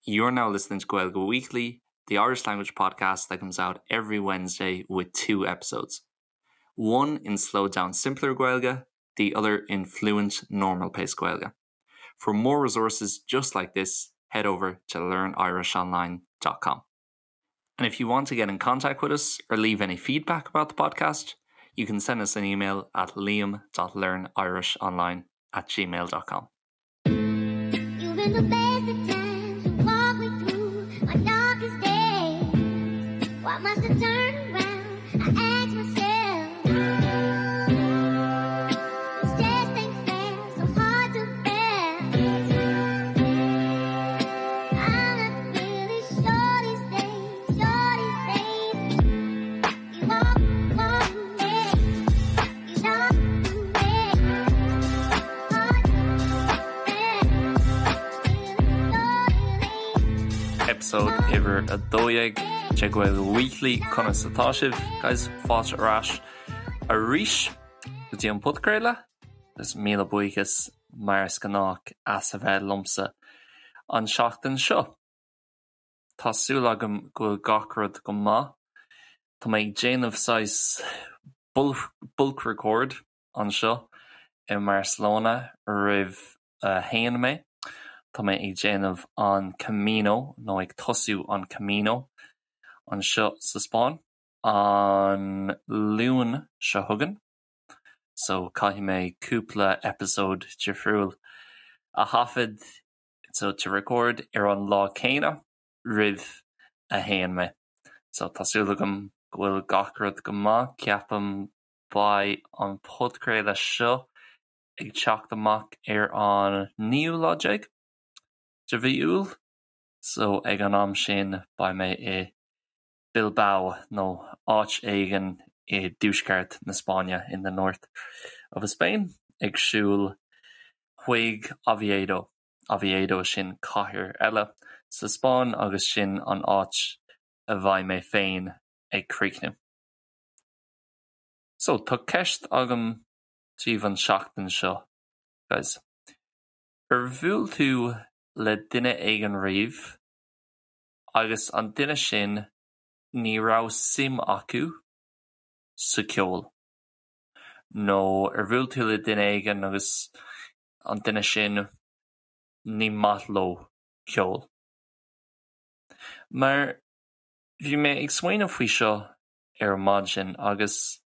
You're now listening to Gaeilge Weekly, the Irish language podcast that comes out every Wednesday with two episodes. One in slowed down simpler Gaeilge, the other in fluent normal pace Gaeilge. For more resources just like this, head over to learnirishonline.com. And if you want to get in contact with us or leave any feedback about the podcast, you can send us an email at liam.learnirishonline at gmail.com. You've been the best of times. You walk me through my darkest days. Why must I turn around? I ask myself. This just ain't fair, so hard to bear. I'm not really sure these days, sure these days. You walk, walk me, you talk to me. Hard to bear. Episode uimhir 12 de Gaeilge Weekly Conas atá sibh guys fáilte ar ais arís go dtí an podchraoladh agus míle buíochas mar is gnách as a bheith liomsa an seachtain seo. Tá súil agam go bhfuil gach rud go maith. Tá mé ag déanamh saghas bulk record anseo i mBarcelona roimh a théann mé. Tá mé ag déanamh an Camino nó ag tosú an Camino anseo sa Spáinn an Luan seo chugainn. So caithfidh mé cúpla episode difriúil a thaifead so to record ar an lá céanna roimh a théann mé. So tá súil agam go bhfuil gach rud go maith. Ceapaim beidh an podchraoladh seo ag teacht amach ar an naoú lá déag de mhí Iúil, so ag an am sin beidh mé i Bilbao nó áit éigin i dtuaisceart na Spáinne, in the north of Spain, ag siúl chuig Oviedo. Oviedo sin cathair eile sa Spáinn agus sin an áit a bheidh mé féin ag críochnú. So, tá ceist agam daoibh an seachtain seo, guys. Ar bhuail tú le duine éigin riamh agus an duine sin ní raibh suim acu sa ceol? Nó ar bhuail tú le duine éigin agus an duine sin ní maith leo ceol? Mar bhí mé ag smaoineamh faoi seo ar maidin agus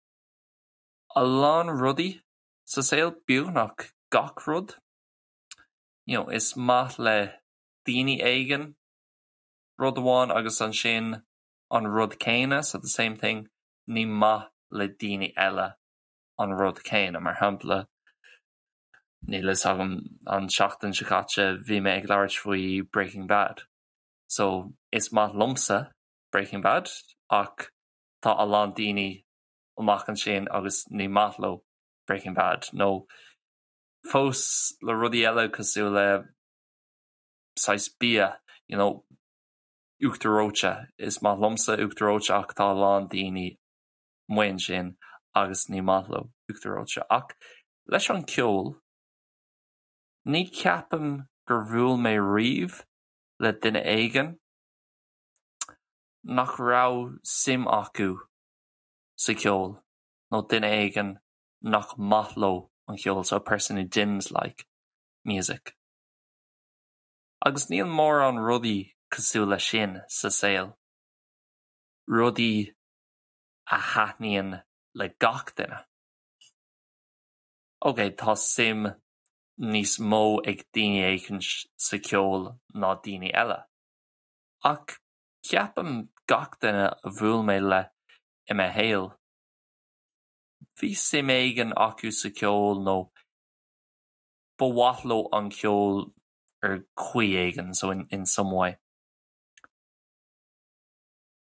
a lán rudaí sa saol, beagnach gach rud, you know, is maith le daoine éigin rud amháin agus ansin an rud céanna, so the same thing, ní maith le daoine eile an rud céanna. Mar shampla, níl fhios agam an seachtain seo caite bhí mé ag labhairt faoi Breaking Bad. So is maith liomsa Breaking Bad ach tá a lán daoine amach ansin agus ní maith leo Breaking Bad nó fós le rudaí eile cosúil le saghas bia, you know, uachtar reoite. Is maith liomsa uachtar reoite ach tá a lán daoine amuigh ansin agus ní maith leo uachtar reoite. Ach leis an ceol, ní ceapaim gur bhuail mé riamh le duine éigin nach raibh suim acu sa cheol nó duine éigin nach maith leo an ceol, so a person who didn't like music. Agus níl mórán rudaí cosúil leis sin sa saol, rudaí a thaitníonn le gach duine. Ok, tá suim níos mó ag daoine éicint sa cheol ná daoine eile. Ach ceapaim gach duine a bhuail mé le i mo shaol, bhí suim éigin acu sa cheol nó ba mhaith leo an ceol ar chaoi éigin, so in, in some way.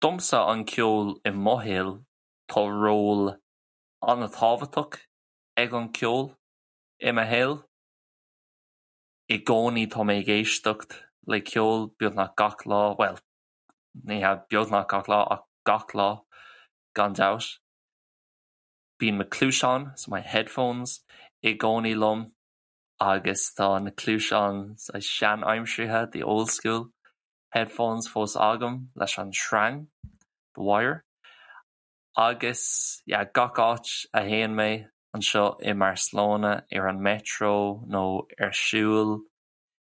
Domsa an ceol i mo shaol, tá ról an-tábhachtach ag an ceol i mo shaol. I gcónaí tá mé ag éisteacht le ceol beagnach gach lá, well, ní hea beagnach gach lá ach gach lá gan dabht. Bíonn mo cluaiseáin, so my headphones, i gcónaí liom agus tá na cluaiseáin sean-aimseartha, the old school. headphones fós agam leis an sreang, the wire. Agus yeah, gach áit a théann mé anseo i mBarcelona ar an metro nó ar siúl,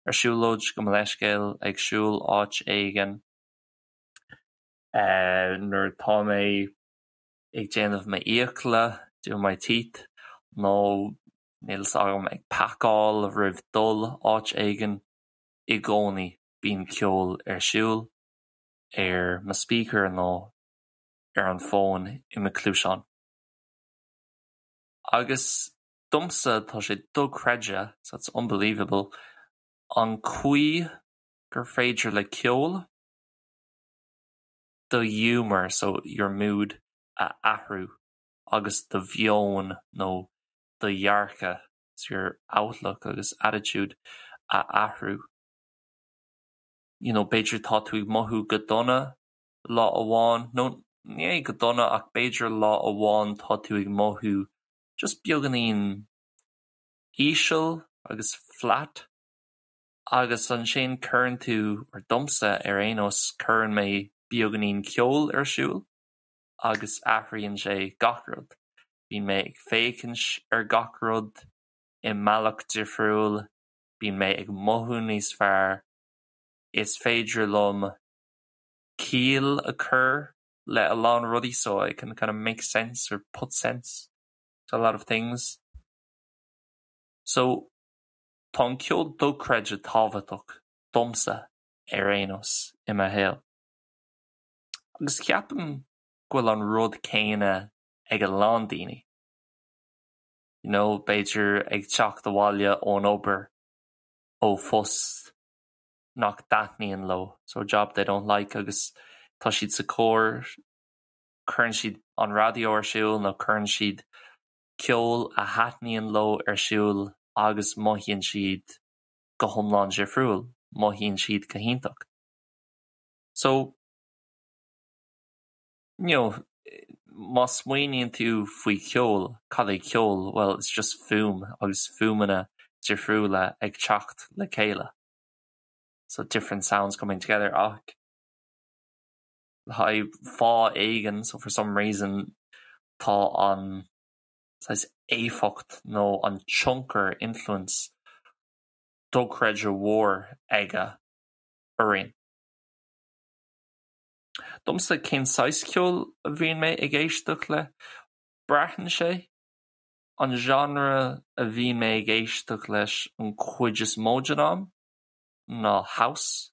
ar siúlóid gabh mo leithscéal, ag siúl áit éigin, eh, nuair atá mé ag déanamh m'fhiacla, doing my teeth, nó níl 'fhios agam ag pacáil roimh dul áit éigin, i gcónaí bíonn ceol ar siúl ar mo speaker nó ar an bhfón i mo chluaiseán. Agus domsa tá sé dochreidte, so it's unbelievable, an chaoi gur féidir le ceol do ghiúmar, so your mood, a athrú agus do mheon nó do dhearcadh, so your outlook agus attitude, a athrú. You know, b'fhéidir tá tú ag mothú go dona lá amháin, nó ní hé go dona ach b'fhéidir lá amháin tá tú ag mothú just beagáinín íseal agus flat agus ansin cuireann tú, or domsa ar aon nós, cuireann mé beagáinín ceoil ar siúl agus athraíonn sé gach rud. Bíonn mé ag féachaint ar gach rud i mbealach difriúil, bíonn mé ag mothú níos fearr, is féidir liom ciall a chur le a lán rudaí so I can kind of make sense or put sense to a lot of things. So tá an ceol dochreidte tábhachtach domsa ar aon nós i mo shaol. Agus ceapaim go bhfuil an rud céanna ag a lán daoine. You know, b'fhéidir ag teacht abhaile ón obair, ó phost nach dtaitníonn leo, so a job they don't like, agus tá siad sa charr, cuireann siad an raidió ar siúl nó cuireann siad ceol a thaitníonn leo ar siúl agus mothaíonn siad go hiomlán difriúil, mothaíonn siad go hiontach. So, you know, má smaoiníonn tú faoi cheol, cad é ceol? Well, it's just fuaim agus fuaimeanna difriúla ag teacht le chéile. So different sounds coming together ach le haghaidh fáth éigin, so for some reason, tá an saghas éifeacht nó an tionchar, influence, dochreidte mhór aige orainn. Domsa, cén saghas ceoil a bhíonn mé ag éisteacht le? Braitheann sé. An genre a bhíonn mé ag éisteacht leis an chuid is mó den am ná house,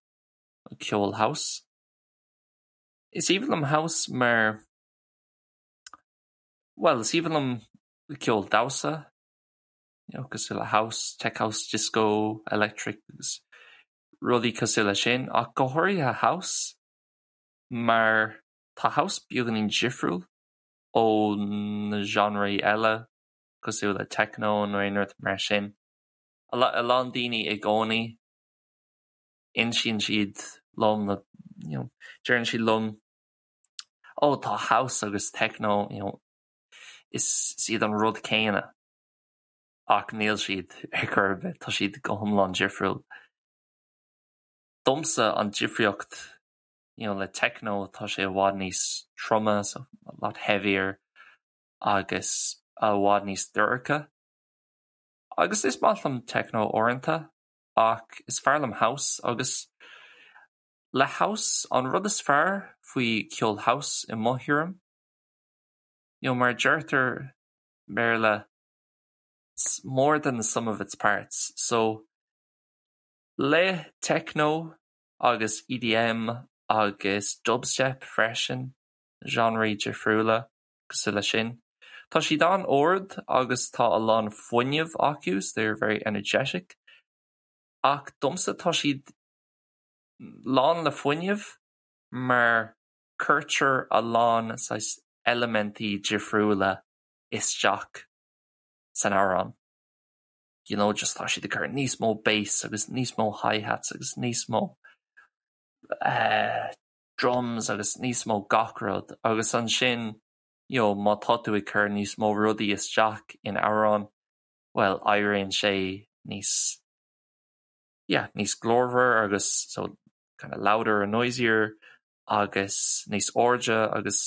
ceol house. Is aoibhinn liom house mar, bhuel, is aoibhinn liom ceol damhsa, you know, cosúil le house, tech house, disco, electric agus rudaí cosúil leis sin, ach go háirithe house mar tá house beagáinín difriúil ó na genreí eile cosúil le techno nó aon rud mar sin. A lán daoine i gcónaí insíonn siad liom nó you know deireann siad liom oh tá house agus techno you know is iad an rud céanna ach níl siad ar chor ar bith, tá siad go hiomlán difriúil. Domsa an difríocht you know le techno tá sé i bhfad níos troime so a lot heavier agus i bhfad níos dorcha. Agus is maith liom techno uaireanta ach is fearr liom house agus le house an rud is fearr faoi ceol house i mo thuairim you know mar a deirtear i mBéarla it's more than the sum of its parts so le techno agus EDM agus dubstep freisin, genreí difriúla cosúil leis sin. Tá siad an-ard agus tá a lán fuinnimh acu, so they're very energetic, ach domsa tá siad lán le fuinneamh mar cuirtear a lán saghas eilimintí difriúla isteach san amhrán. You know, just tá siad ag cur níos mó bass agus níos mó hi-hats agus níos mó eh, drums agus níos mó gach rud agus ansin you know, má tá tú ag cur níos mó rudaí isteach in amhrán, well, éiríonn sé níos, yeah, níos glórmhar agus so. kind of louder and noisier agus níos airde agus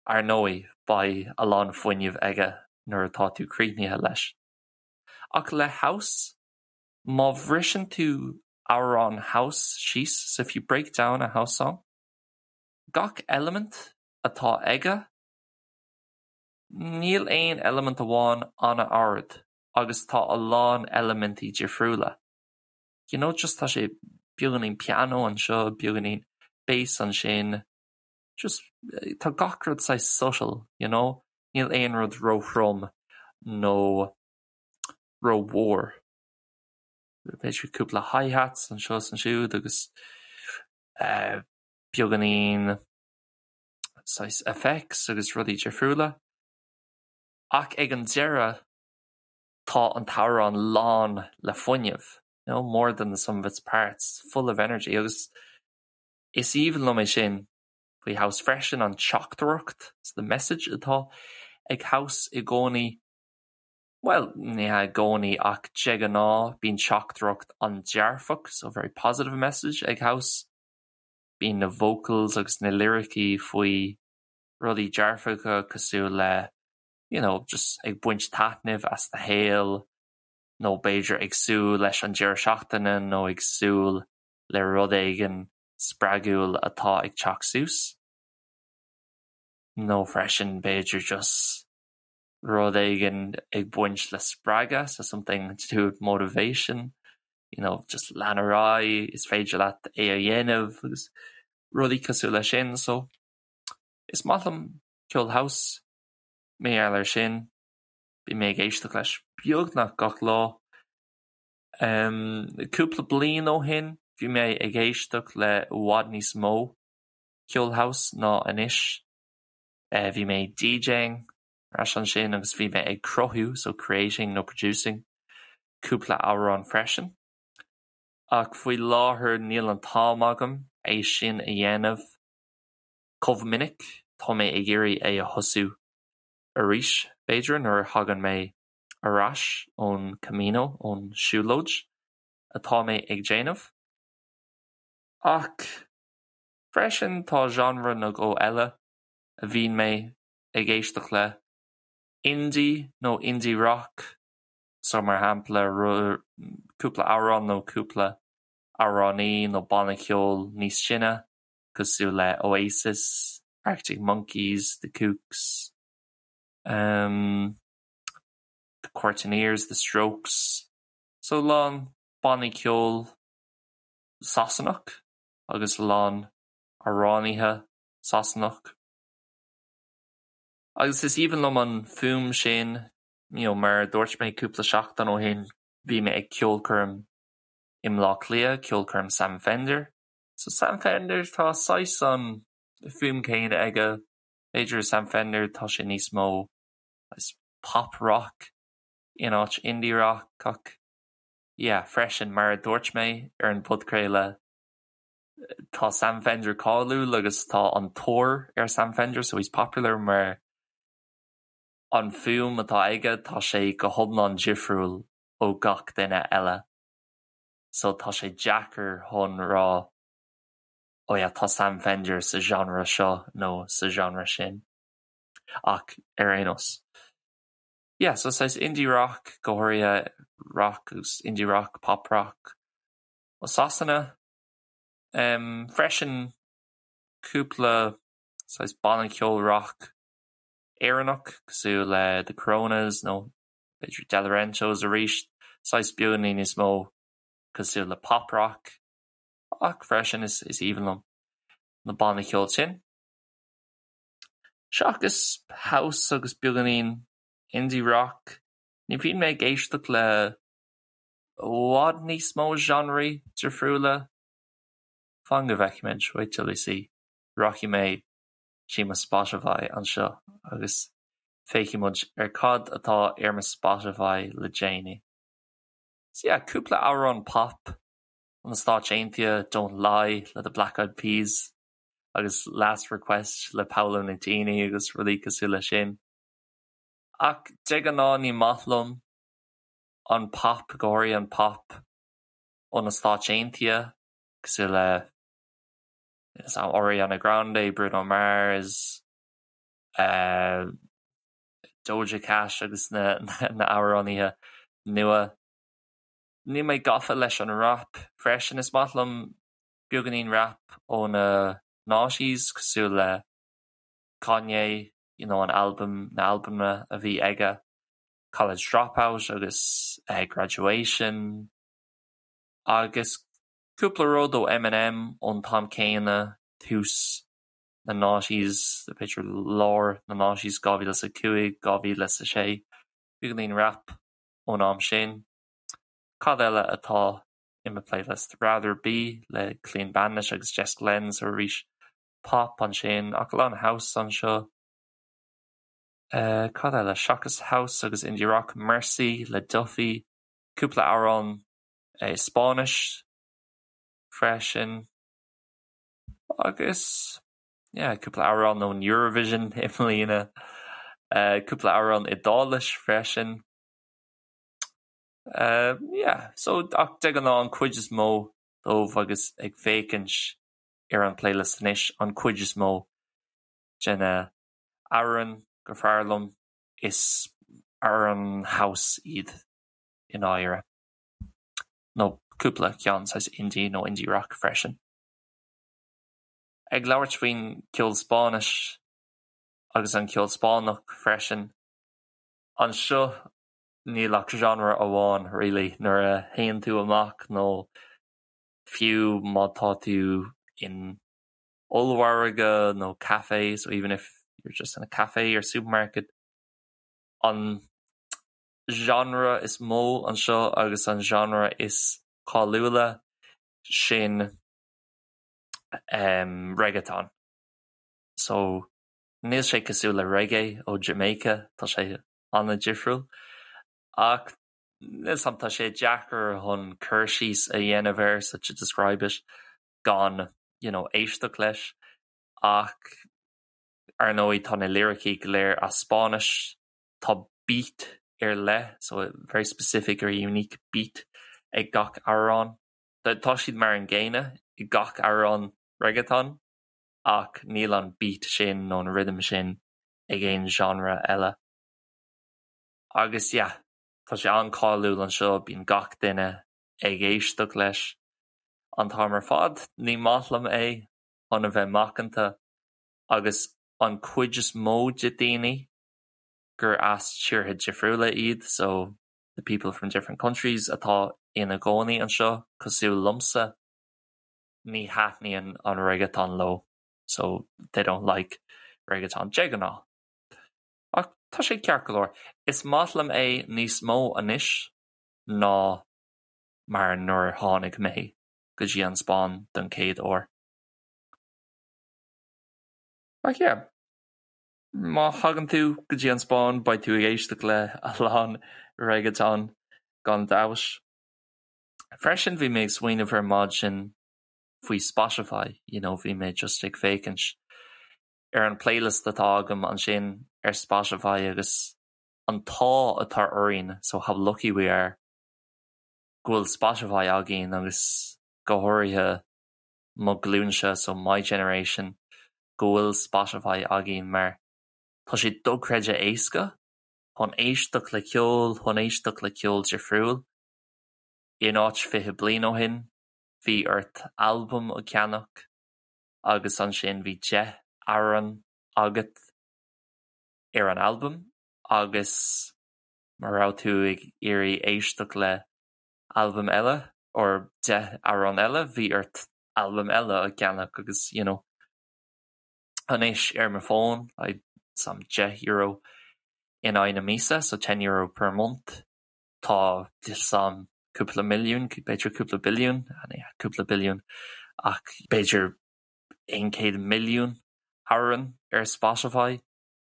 ar ndóigh beidh a lán fuinnimh aige nuair atá tú críochnaithe leis. Ach le house, má bhriseann tú amhrán house síos, so if you break down a house song, gach eilimint atá aige, níl aon eilimint amháin an-ard agus tá a lán eilimintí difriúla. You know, just tá sé beagáinín pianó anseo, beagáinín bass ansin, just tá gach rud saghas subtle, you know, níl aon rud róthrom nó rómhór. B'fhéidir cúpla hi-hats anseo is ansiúd agus eh, beagáinín saghas effects agus rudaí difriúla. Ach ag an deireadh tá an t-amhrán lán le fuinneamh, you know, more than the sum of its parts, full of energy agus is aoibhinn liom é sin faoi house freisin, an teachtaireacht, so the message atá ag house i gcónaí, bhuel, ní hea i gcónaí ach de ghnáth bíonn teachtaireacht an-dearfach, so very positive message ag house, bíonn na vocals agus na liricí faoi rudaí dearfacha cosúil le you know, just ag baint taitnimh as do shaol nó b'fhéidir ag súil leis an deireadh seachtaine nó ag súil le rud éigin spreagúil atá ag teacht suas. Nó freisin b'fhéidir just rud éigin ag baint le spreagadh, so something to do with motivation, you know, just lean ar aghaidh, is féidir leat é a dhéanamh agus rudaí cosúil leis sin. So is maith liom ceol house, mar gheall air sin, bíonn mé ag éisteacht leis beagnach gach lá. Um, cúpla bliain ó shin bhí mé ag éisteacht le i bhfad níos mó ceol house ná anois. Eh, bhí mé DJing ar ais ansin agus bhí mé ag cruthú, so creating nó producing, cúpla amhrán freisin. Ach faoi láthair níl an t-am agam é sin a dhéanamh chomh minic, tá mé ag iarraidh é a thosú arís, b'fhéidir, nuair a thagann mé ar ais ón Camino, ón siúlóid atá mé ag déanamh. Ach freisin tá genre nó dhó eile a bhíonn mé ag éisteacht le, indie nó indie rock, so mar shampla cúpla amhrán nó cúpla amhránaí nó banna ceoil níos sine cosúil le Oasis, Arctic Monkeys, The Kooks, um, The Courteeners, The Strokes, so a lán bannaí ceoil Sasanach agus a lán amhránaithe Sasanach. Agus is aoibhinn liom an fuaim sin, you know, mar a dúirt mé cúpla seachtain ó shin, bhí mé ag ceolchoirm i mBleá Cliath, ceolchoirm Sam Fender. So Sam Fender, tá saghas an fuaim céanna aige, b'fhéidir Sam Fender tá sé níos mó saghas pop rock in áit indie rock ach yeah, freisin mar a dúirt mé ar an bpodchraoladh, tá Sam Fender cáiliúil agus tá an tóir ar Sam Fender so he's popular mar an fuaim atá aige tá sé go hiomlán difriúil ó gach duine eile so tá sé deacair chun rá oh yeah tá Sam Fender sa genre seo nó sa genre sin ach ar aon nós. Yeah, so saghas indie rock go háirithe rock agus indie rock, pop rock ó Sasana. Freisin cúpla saghas banna ceoil rock Éireannach cosúil le The Coronas nó b'fhéidir Delorentos arís, saghas beagáinín níos mó cosúil le pop rock ach freisin is aoibhinn liom na bannaí ceoil sin. Seachas house agus beagáinín indie rock, ní bhíonn mé ag éisteacht le i bhfad níos mó genreí difriúla. Fan go bhfeicfimid, wait till we see. Rachaidh mé dtí mo Spotify anseo agus féachfaidh muid ar cad atá ar mo Spotify le déanaí. So yeah, cúpla amhrán pop ó na Stáit Aontaithe, Don't Lie le The Black Eyed Peas agus Last Request le Paolo Nutini agus rudaí cosúil leis sin. Ach de ghnáth ní maith liom an pop, go háirithe an pop ó na Stáit Aontaithe, cosúil le. Ariana Grande, Bruno Mars, Doja Cat agus na amhránaithe nua. Níl mé gafa leis an rap freisin. Is maith liom beagáinín rap ó na noughties cosúil le Kanye, you know an albam, na albaim a bhí aige, College Dropout agus Graduation agus cúpla rud ó Eminem ón t-am céanna, tús na noughties, b'fhéidir lár na noughties, 2005, 2006, beagáinín rap ón am sin. Cad eile atá i mo playlist? Rather Be le Clean Bandit agus Jess Glynne, so arís pop ansin, ach a lán house anseo. Cad eile? Seachas house agus indie rock, Mercy le Duffy, cúpla amhrán Spáinnis freisin agus yeah cúpla amhrán ón Eurovision i mbliana, cúpla amhrán Iodáilis freisin. Yeah, so ach de ghnáth an cuid is mó dóibh agus ag féachaint ar an playlist anois, an cuid is mó de na amhráin gur fearr liom is amhráin house iad i ndáiríre. Nó cúpla ceann saghas indie nó indie rock freisin. Ag labhairt faoin ceol Spáinnis agus an ceol Spáinneach freisin, anseo níl ach genre amháin really nuair a théann tú amach nó fiú má tá tú in ollmhargadh nó café, so even if you're just in a cafe or supermarket, an genre is mó anseo agus an genre is cáiliúla sin um, reggaeton. So níl sé cosúil le reggae ó Jamaica, tá sé an-difriúil. Ach níl 's a'm tá sé deacair chun cur síos a dhéanamh air, so to describe it, gan you know, éisteacht leis. Ach ar ndóigh tá na liricí go léir as Spáinnis, tá beat ar leith, so a very specific or unique beat ag gach amhrán. Tá siad mar an gcéanna i gach amhrán reggaeton ach níl an beat sin nó an rhythm sin ag aon genre eile. Agus yeah, tá sé an-cáiliúil anseo, bíonn gach duine ag éisteacht leis an t-am ar fad. Ní maith liom é chun a bheith macanta agus an cuid is mó de daoine gur as tíortha difriúla iad, so the people from different countries atá ina gcónaí anseo cosúil liomsa, ní thaitníonn an reggaeton leo, so they don't like reggaeton de ghnáth. Ach tá sé ceart go leor. Is maith liom é níos mó anois ná mar nuair a tháinig mé go dtí an Spáinn don chéad uair. Ach yeah, má thagann tú go dtí an Spáinn beidh tú ag éisteacht le a lán reggaeton gan dabht. Freisin bhí mé ag smaoineamh ar maidin faoi Spotify, you know, bhí mé just ag féachaint ar an playlist atá agam ansin ar Spotify agus an t-ádh atá orainn, so how lucky we are, go bhfuil Spotify againn agus go háirithe mo ghlúinse, so my generation, go bhfuil Spotify againn mar tá sé dochreidte éasca chun éisteacht le ceol, chun éisteacht le ceol difriúil. In áit 20 bliain ó shin, bhí ort albam a cheannach agus ansin bhí 10 amhrán agat ar an albam agus má raibh tú ag iarraidh éisteacht le albam eile or 10 amhrán eile, bhí ort albam eile a cheannach agus you know anois ar mo fón like some €10 in aghaidh na míosa, so €10 per month, tá some cúpla milliún, b'fhéidir cúpla billiún, cúpla billiún ach b'fhéidir 100 milliún amhrán ar Spotify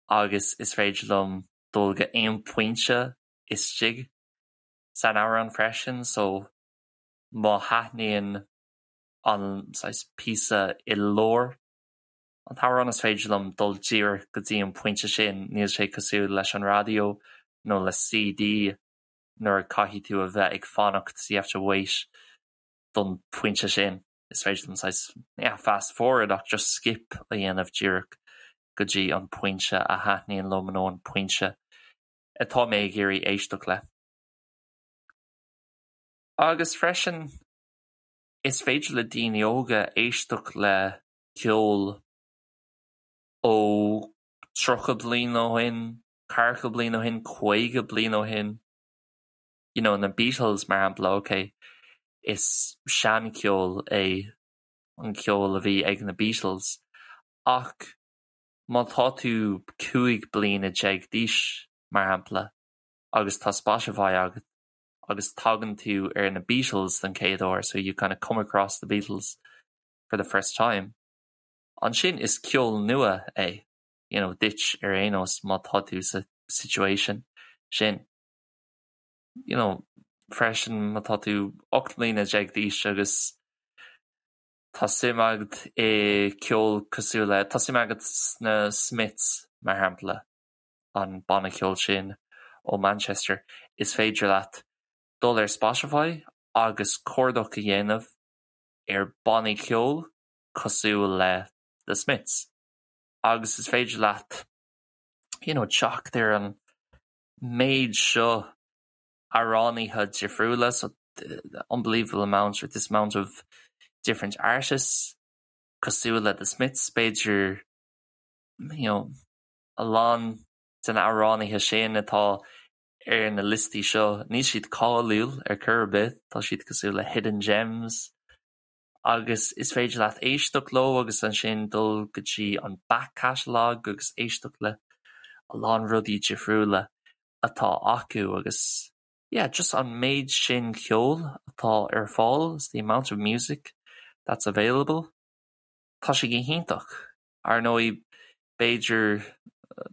agus is féidir liom dul go aon pointe istigh san amhrán freisin so má thaitníonn an saghas píosa i lár an t-amhrán is féidir liom dul díreach go dtí an pointe sin, níl sé cosúil leis an raidió nó le CD nuair a caithfidh tú a bheith ag fanacht so you have to wait don phointe sin. Is féidir liom saghas, yeah, fast forward ach just skip a dhéanamh díreach go dtí an pointe a thaitníonn liom nó an pointe atá mé ag iarraidh éisteacht le. Agus freisin, is féidir le daoine óga éisteacht le ceol ó 30 bliain ó shin, 40 bliain ó shin, 50 bliain ó shin. You know, na Beatles mar shampla, ok, is seancheol é an ceol a bhí ag na Beatles ach má tá tú 15 bliana d'aois, mar shampla, agus tá Spotify agat agus tagann tú ar na Beatles den chéad uair, so you kind of come across the Beatles for the first time, ansin is ceol nua é, you know, duit ar aon nós má tá tú sa situation sin. You know, freisin má tá tú 18 mbliana d'aois agus tá suim agat i ceol cosúil le, tá suim agat sna Smiths mar shampla, an banna ceoil sin ó Manchester, is féidir leat dul ar Spotify agus cuardach a dhéanamh ar bannaí ceoil cosúil le The Smiths agus is féidir leat you know teacht ar an méid seo amhránaithe difriúla, so the unbelievable amount or this amount of different artists cosúil le The Smiths, b'fhéidir you know a lán de na amhránaithe sin atá ar na liostaí seo, níl siad cáiliúil ar chor ar bith, tá siad cosúil le hidden gems agus is féidir leat éisteacht leo agus ansin dul go dtí an back catalogue agus éisteacht le a lán rudaí difriúla atá acu agus yeah just an méid sin ceoil atá ar fáil, the amount of music that's available, tá sé go hiontach. Ar ndóigh b'fhéidir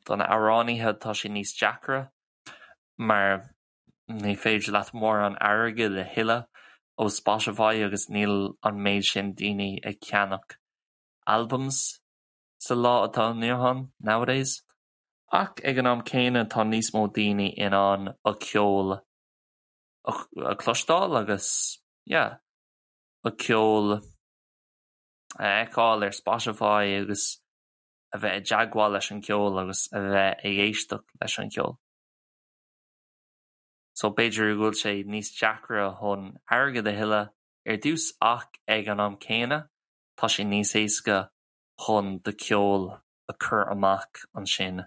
do na amhránaithe tá sé níos deacra mar ní féidir leat mórán airgid a thuilleadh ó Spotify agus níl an méid sin daoine ag ceannach albums sa lá atá inniu ann, nowadays. Ach ag an am céanna tá níos mó daoine in ann a ceol a chloisteáil agus yeah a ceol a fheiceáil ar Spotify agus a bheith i dteagmháil leis an gceol agus a bheith ag éisteacht leis an cheol. So b'fhéidir go bhfuil sé níos deacra chun airgead a thuilleadh ar dtús ach ag an am céanna tá sé níos éasca chun do cheol a chur amach ansin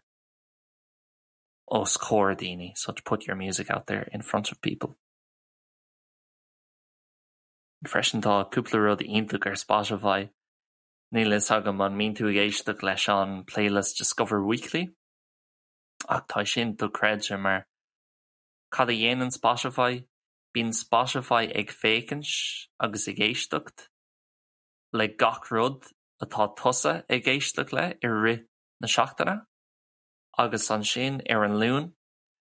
os comhair daoine, so to put your music out there in front of people. Freisin tá cúpla rud iontach ar Spotify. Níl fhios agam an mbíonn tú ag éisteacht leis an playlist Discover Weekly? Ach tá sin dochreidte mar cad a dhéanann Spotify? Bíonn Spotify ag féachaint agus ag éisteacht le gach rud atá tusa ag éisteacht le i rith na seachtaine agus ansin ar an Luan,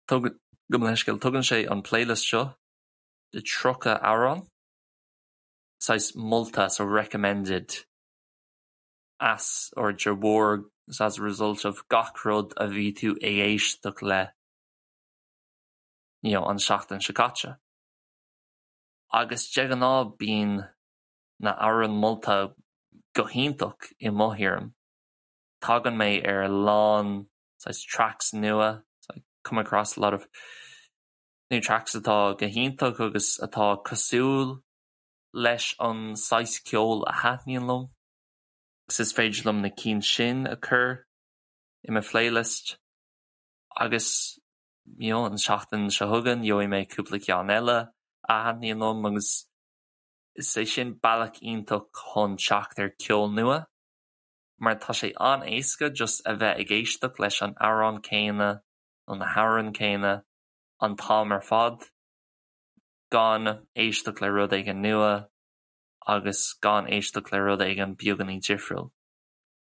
gabh mo leithscéal, tugann sé an playlist seo de 30 amhrán, saghas molta, so recommended. as or de bharr as a result of gach rud a bhí tú ag éisteacht le you know an seachtain seo caite. Agus de ghnáth bíonn na hamhráin molta go hiontach i mo thuairim. Tagann mé ar a lán saghas tracks nua, so I come across a lot of new tracks atá go hiontach agus atá cosúil leis an saghas ceoil a thaitníonn liom. Agus is féidir liom na cinn sin a chur i mo phlaylist agus you know an tseachtain seo chugainn gheobhaidh mé cúpla ceann eile a thaitníonn liom agus is é sin bealach iontach chun teacht ar ceol nua mar tá sé an-éasca just a bheith ag éisteacht leis an amhrán céanna nó na hamhráin céanna an t-am ar fad gan éisteacht le rud éigin nua agus gan éisteacht le rud éigin beagáinín difriúil.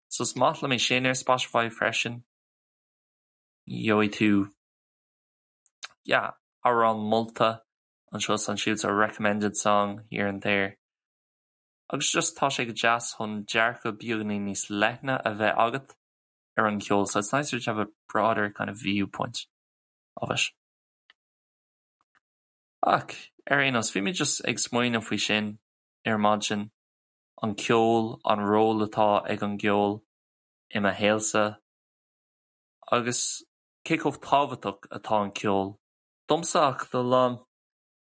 So is maith liom é sin ar Spotify freisin. Gheobhaidh tú yeah, amhrán molta anseo is ansiúd, so recommended song here and there. Agus just tá sé go deas chun dearcadh beagáinín níos leithne a bheith agat ar an cheol, so it's nicer to have a broader kind of viewpoint of it. Ach, ar aon nós, bhí mé just ag smaoineamh faoi sin ar maidin. An ceol, an ról atá ag an gceol i mo shaolsa agus cé chomh tábhachtach atá an ceol domsa ach do a lán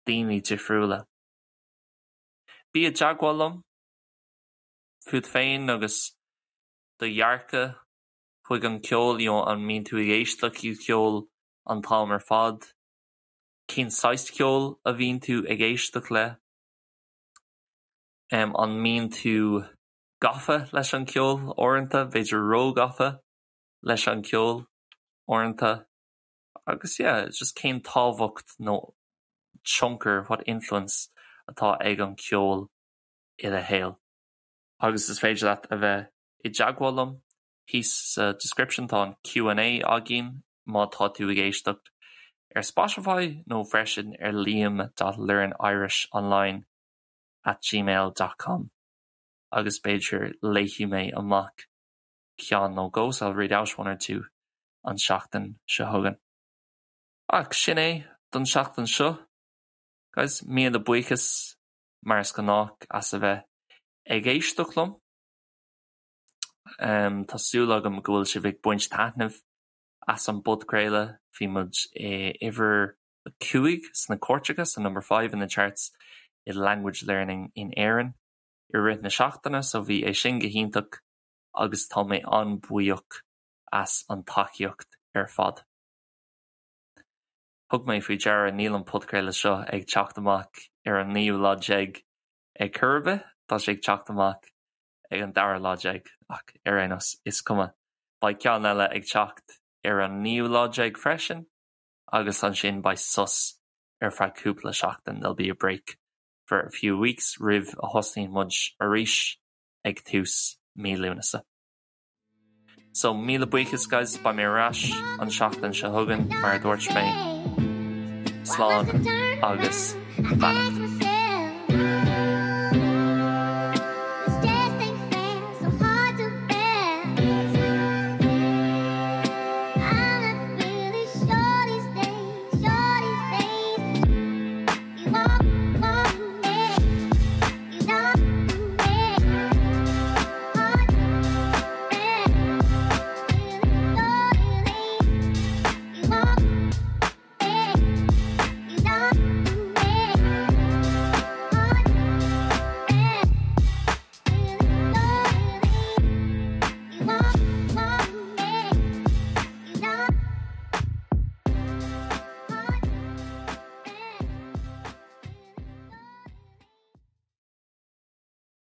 daoine difriúla. Bí i dteagmháil liom fút féin agus do dhearcadh chuig an gceol, you know, an mbíonn tú ag éisteacht le ceol an t-am ar fad? Cén saghas ceoil a bhíonn tú ag éisteacht le? An mbíonn tú gafa leis an gceol uaireanta, b'fhéidir róghafa leis an gceol uaireanta? Agus yeah, just cén tábhacht nó tionchar, what influence, atá ag an cheol i do shaol? Agus is féidir leat a bheith i dteagmháil liom thíos sa description tá an Q and A againn má tá tú ag éisteacht ar Spotify nó freisin ar liam dot learnirishonline at gmail dot com agus b'fhéidir léifidh mé amach ceann nó dhó so I'll read out one or two an tseachtain seo chugainn. Ach sin é don seachtain seo, guys. Míle buíochas mar is gnách as a bheith ag éisteacht liom. Tá súil agam go bhfuil sibh ag baint taitneamh as an bpodchraoladh. Bhí muid i uimhir a 5 sna cairteacha, so number 5 in the charts i language learning in Éirinn i rith na seachtaine, so bhí é sin go hiontach agus tá mé an-bhuíoch as an tacaíocht ar fad. Thug mé faoi deara níl an podchraoladh seo ag teacht amach ar an naoú lá déag ag cor ar bith, tá sé ag teacht amach ag an dara lá déag, ach ar aon nós, is cuma. Beidh ceann eile ag teacht ar an naoú lá déag freisin agus ansin beidh sos ar feadh cúpla seachtain, there'll be a break for a few weeks roimh a thosnaíonn muid arís ag tús mí Lúnasa. So míle buíochas guys, beidh mé ar ais an seachtain seo chugainn mar a dúirt mé. Slán agus beannacht.